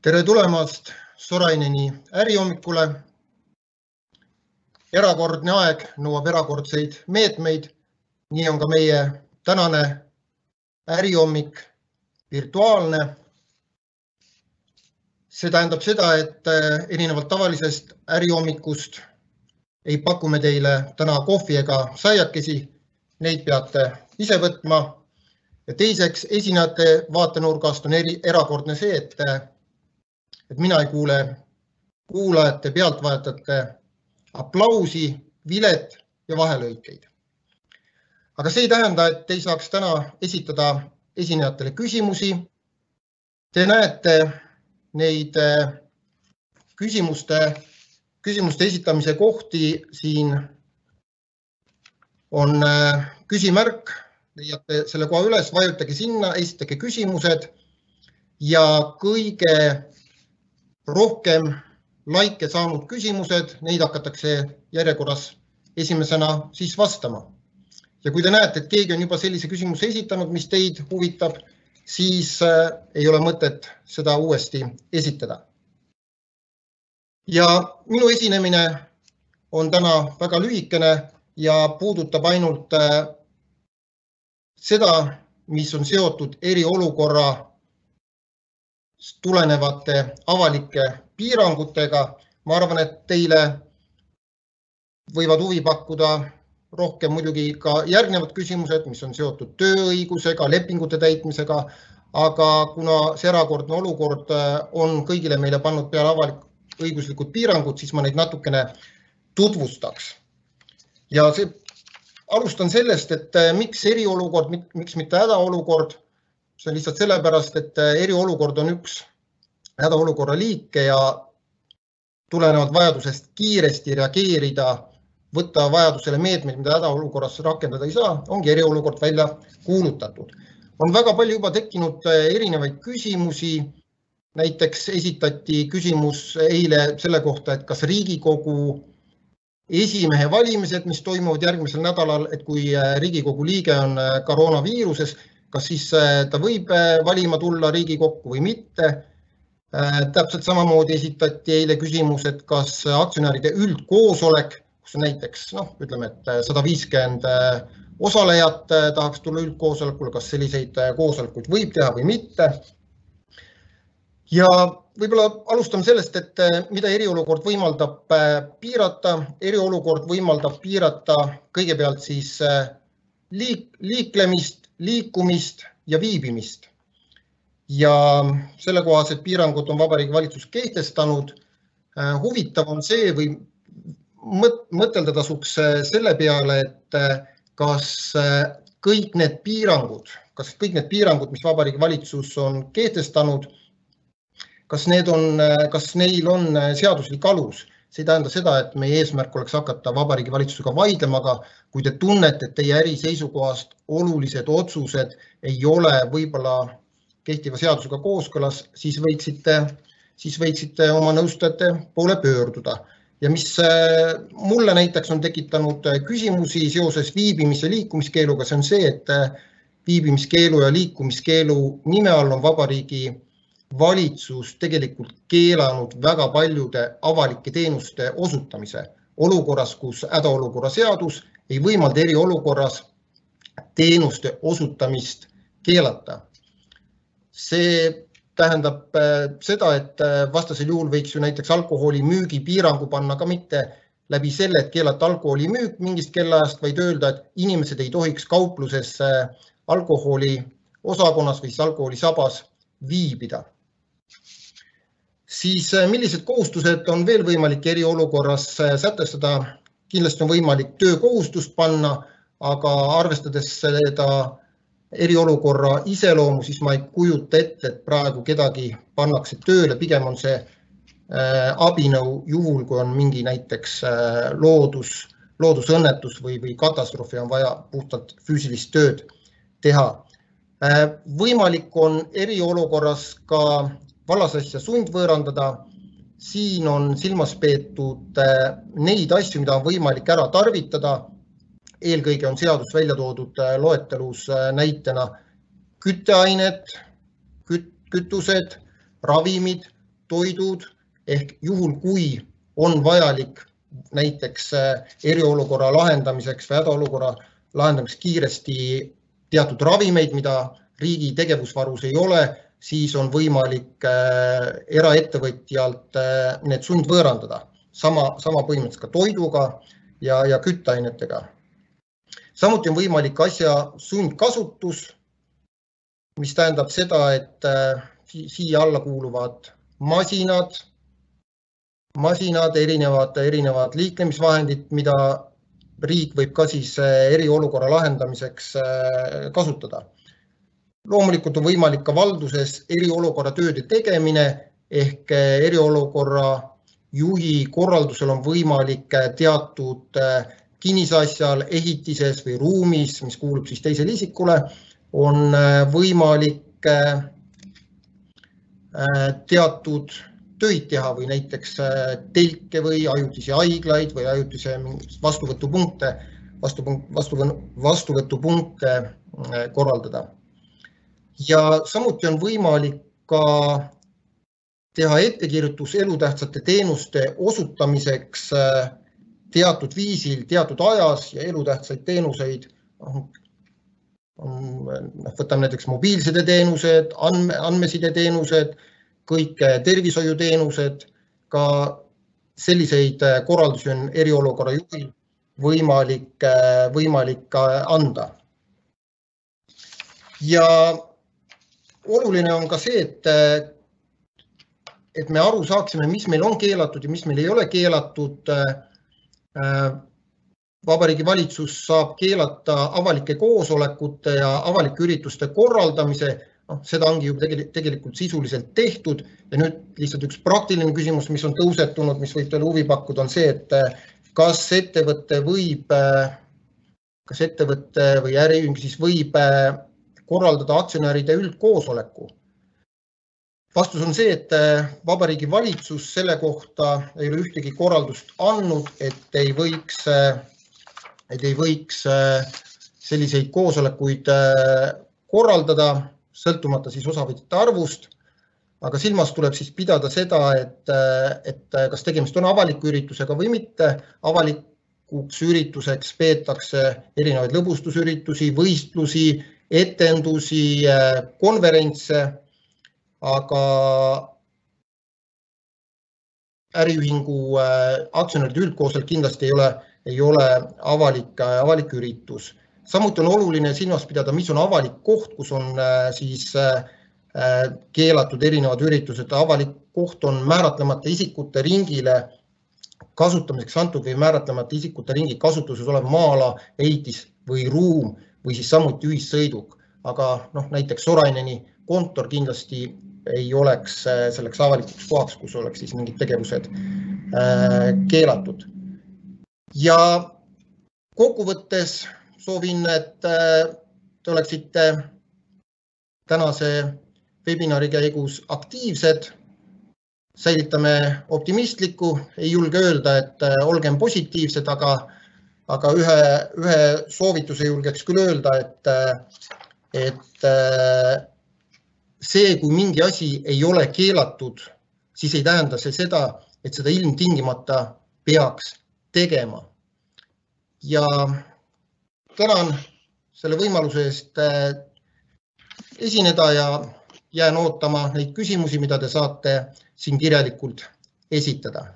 Tere tulemast Soraineni ärihommikule. Erakordne aeg nõuab erakordseid meetmeid. Nii on ka meie tänane ärihommik virtuaalne. See tähendab seda, et erinevalt tavalisest ärihommikust ei paku me teile täna kohvi ega saiakesi. Neid peate ise võtma. Ja teiseks, esinejate vaatenurgast on erakordne see, et mina ei kuule kuulajate, pealtvaatajate aplausi, vilet ja vahelõikeid. Aga see ei tähenda, et ei saaks täna esitada esinejatele küsimusi. Te näete neid küsimuste esitamise kohti. Siin on küsimärk, leiate selle koha üles, vajutage sinna, esitage küsimused ja kõige rohkem laike saanud küsimused, neid hakatakse järjekorras esimesena siis vastama. Ja kui te näete, et keegi on juba sellise küsimuse esitanud, mis teid huvitab, siis ei ole mõtet seda uuesti esitada. Ja minu esinemine on täna väga lühikene ja puudutab ainult seda, mis on seotud eriolukorra tulenevate avalike piirangutega. Ma arvan, et teile võivad huvi pakkuda rohkem muidugi ka järgnevad küsimused, mis on seotud tööõigusega, lepingute täitmisega, aga kuna see erakordne olukord on kõigile meile pannud peale avalik-õiguslikud piirangud, siis ma neid natukene tutvustaks. Ja alustan sellest, et miks eriolukord, miks mitte hädaolukord. See on lihtsalt sellepärast, et eriolukord on üks hädaolukorra liike ja tulenevalt vajadusest kiiresti reageerida, võtta vajadusele meetmeid, mida hädaolukorras rakendada ei saa, ongi eriolukord välja kuulutatud. On väga palju juba tekkinud erinevaid küsimusi. Näiteks esitati küsimus eile selle kohta, et kas Riigikogu esimehe valimised, mis toimuvad järgmisel nädalal, et kui Riigikogu liige on koroonaviiruses, kas siis ta võib valima tulla Riigikokku või mitte. Täpselt samamoodi esitati eile küsimus, et kas aktsionäride üldkoosolek, kus on näiteks, ütleme, et 150 osalejat tahaks tulla üldkoosolekule, kas selliseid koosolekuid võib teha või mitte. Ja võib-olla alustame sellest, et mida eriolukord võimaldab piirata. Eriolukord võimaldab piirata kõigepealt siis liiklemist, liikumist ja viibimist. Ja sellekohased piirangud on Vabariigi Valitsus kehtestanud. Huvitav on see või mõtelda tasuks selle peale, et kas kõik need piirangud, mis Vabariigi Valitsus on kehtestanud, kas neil on seaduslik alus. See ei tähenda seda, et meie eesmärk oleks hakata Vabariigi Valitsusega vaidlema, aga kui te tunnete, et teie äri seisukohast olulised otsused ei ole võib-olla kehtiva seadusega kooskõlas, siis võiksite oma nõustajate poole pöörduda. Ja mis mulle näiteks on tekitanud küsimusi seoses viibimis- ja liikumiskeeluga, see on see, et viibimiskeelu ja liikumiskeelu nime all on Vabariigi Valitsus tegelikult keelanud väga paljude avalike teenuste osutamise olukorras, kus hädaolukorra seadus ei võimalda eriolukorras teenuste osutamist keelata. See tähendab seda, et vastasel juhul võiks ju näiteks alkoholi müügi piirangu panna ka mitte läbi selle, et keelata alkoholi müük mingist kellaajast, vaid öelda, et inimesed ei tohiks kaupluses alkoholi osakonnas või alkoholisabas viibida. Siis millised kohustused on veel võimalik eriolukorras sätestada? Kindlasti on võimalik töökohustust panna, aga arvestades seda eriolukorra iseloomu, siis ma ei kujuta ette, et praegu kedagi pannakse tööle. Pigem on see abinõu juhul, kui on mingi näiteks loodusõnnetus või katastroofi on vaja puhtalt füüsilist tööd teha. Võimalik on eriolukorras ka vallasasja sundvõõrandada. Siin on silmas peetud neid asju, mida on võimalik ära tarvitada. Eelkõige on seadus välja toodud loetelus näitena kütteained, kütused, ravimid, toidud ehk juhul, kui on vajalik näiteks eriolukorra lahendamiseks või hädaolukorra lahendamiseks kiiresti teatud ravimeid, mida riigi tegevusvarus ei ole, siis on võimalik eraettevõtjalt need sundvõõrandada. Sama põhimõtteliselt ka toiduga ja kütteainetega. Samuti on võimalik asja sundkasutus, mis tähendab seda, et siia alla kuuluvad masinad, erinevad liiklemisvahendid, mida riik võib ka siis eriolukorra lahendamiseks kasutada. Loomulikult on võimalik ka valduses eriolukorra tööde tegemine ehk eriolukorra juhi korraldusel on võimalik teatud kinnisasjal, ehitises või ruumis, mis kuulub siis teisele isikule, on võimalik teatud töid teha või näiteks telke või ajutisi haiglaid või ajutise vastuvõtupunkte korraldada. Ja samuti on võimalik ka teha ettekirjutus elutähtsate teenuste osutamiseks teatud viisil, teatud ajas ja elutähtsaid teenuseid. Võtame näiteks mobiilsideteenused, andmesideteenused, kõik tervishoiuteenused, ka selliseid korraldusi on eriolukorra juhil võimalik anda. Ja oluline on ka see, et me aru saaksime, mis meil on keelatud ja mis meil ei ole keelatud. Vabariigi Valitsus saab keelata avalike koosolekute ja avalike ürituste korraldamise. Seda ongi ju tegelikult sisuliselt tehtud ja nüüd lihtsalt üks praktiline küsimus, mis on tõusetunud, mis võib teile huvi pakkuda, on see, et kas ettevõtte või äriühing siis võib korraldada aktsionäride üldkoosoleku. Vastus on see, et Vabariigi Valitsus selle kohta ei ole ühtegi korraldust andnud, et ei võiks selliseid koosolekuid korraldada, sõltumata siis osavõtjate arvust, aga silmas tuleb siis pidada seda, et kas tegemist on avaliku üritusega või mitte. Avalikuks ürituseks peetakse erinevaid lõbustusüritusi, võistlusi, etendusi, konverentse, aga äriühingu aktsionäride üldkoosolek kindlasti ei ole avalik üritus. Samuti on oluline silmas pidada, mis on avalik koht, kus on siis keelatud erinevad üritused. Avalik koht on määratlemata isikute ringile kasutamiseks antud või määratlemata isikute ringi kasutuses olev maa-ala, ehitis või ruum või siis samuti ühissõiduk. Aga näiteks Soraineni kontor kindlasti ei oleks selleks avalikuks kohaks, kus oleks siis mingid tegevused keelatud. Ja kokkuvõttes soovin, et te oleksite tänase webinari käigus aktiivsed, säilitame optimistlikku, ei julge öelda, et olgem positiivsed, aga ühe soovituse julgeks küll öelda, et see, kui mingi asi ei ole keelatud, siis ei tähenda see seda, et seda ilmtingimata peaks tegema. Ja tänan selle võimaluse eest esineda ja jään ootama neid küsimusi, mida te saate siin kirjalikult esitada.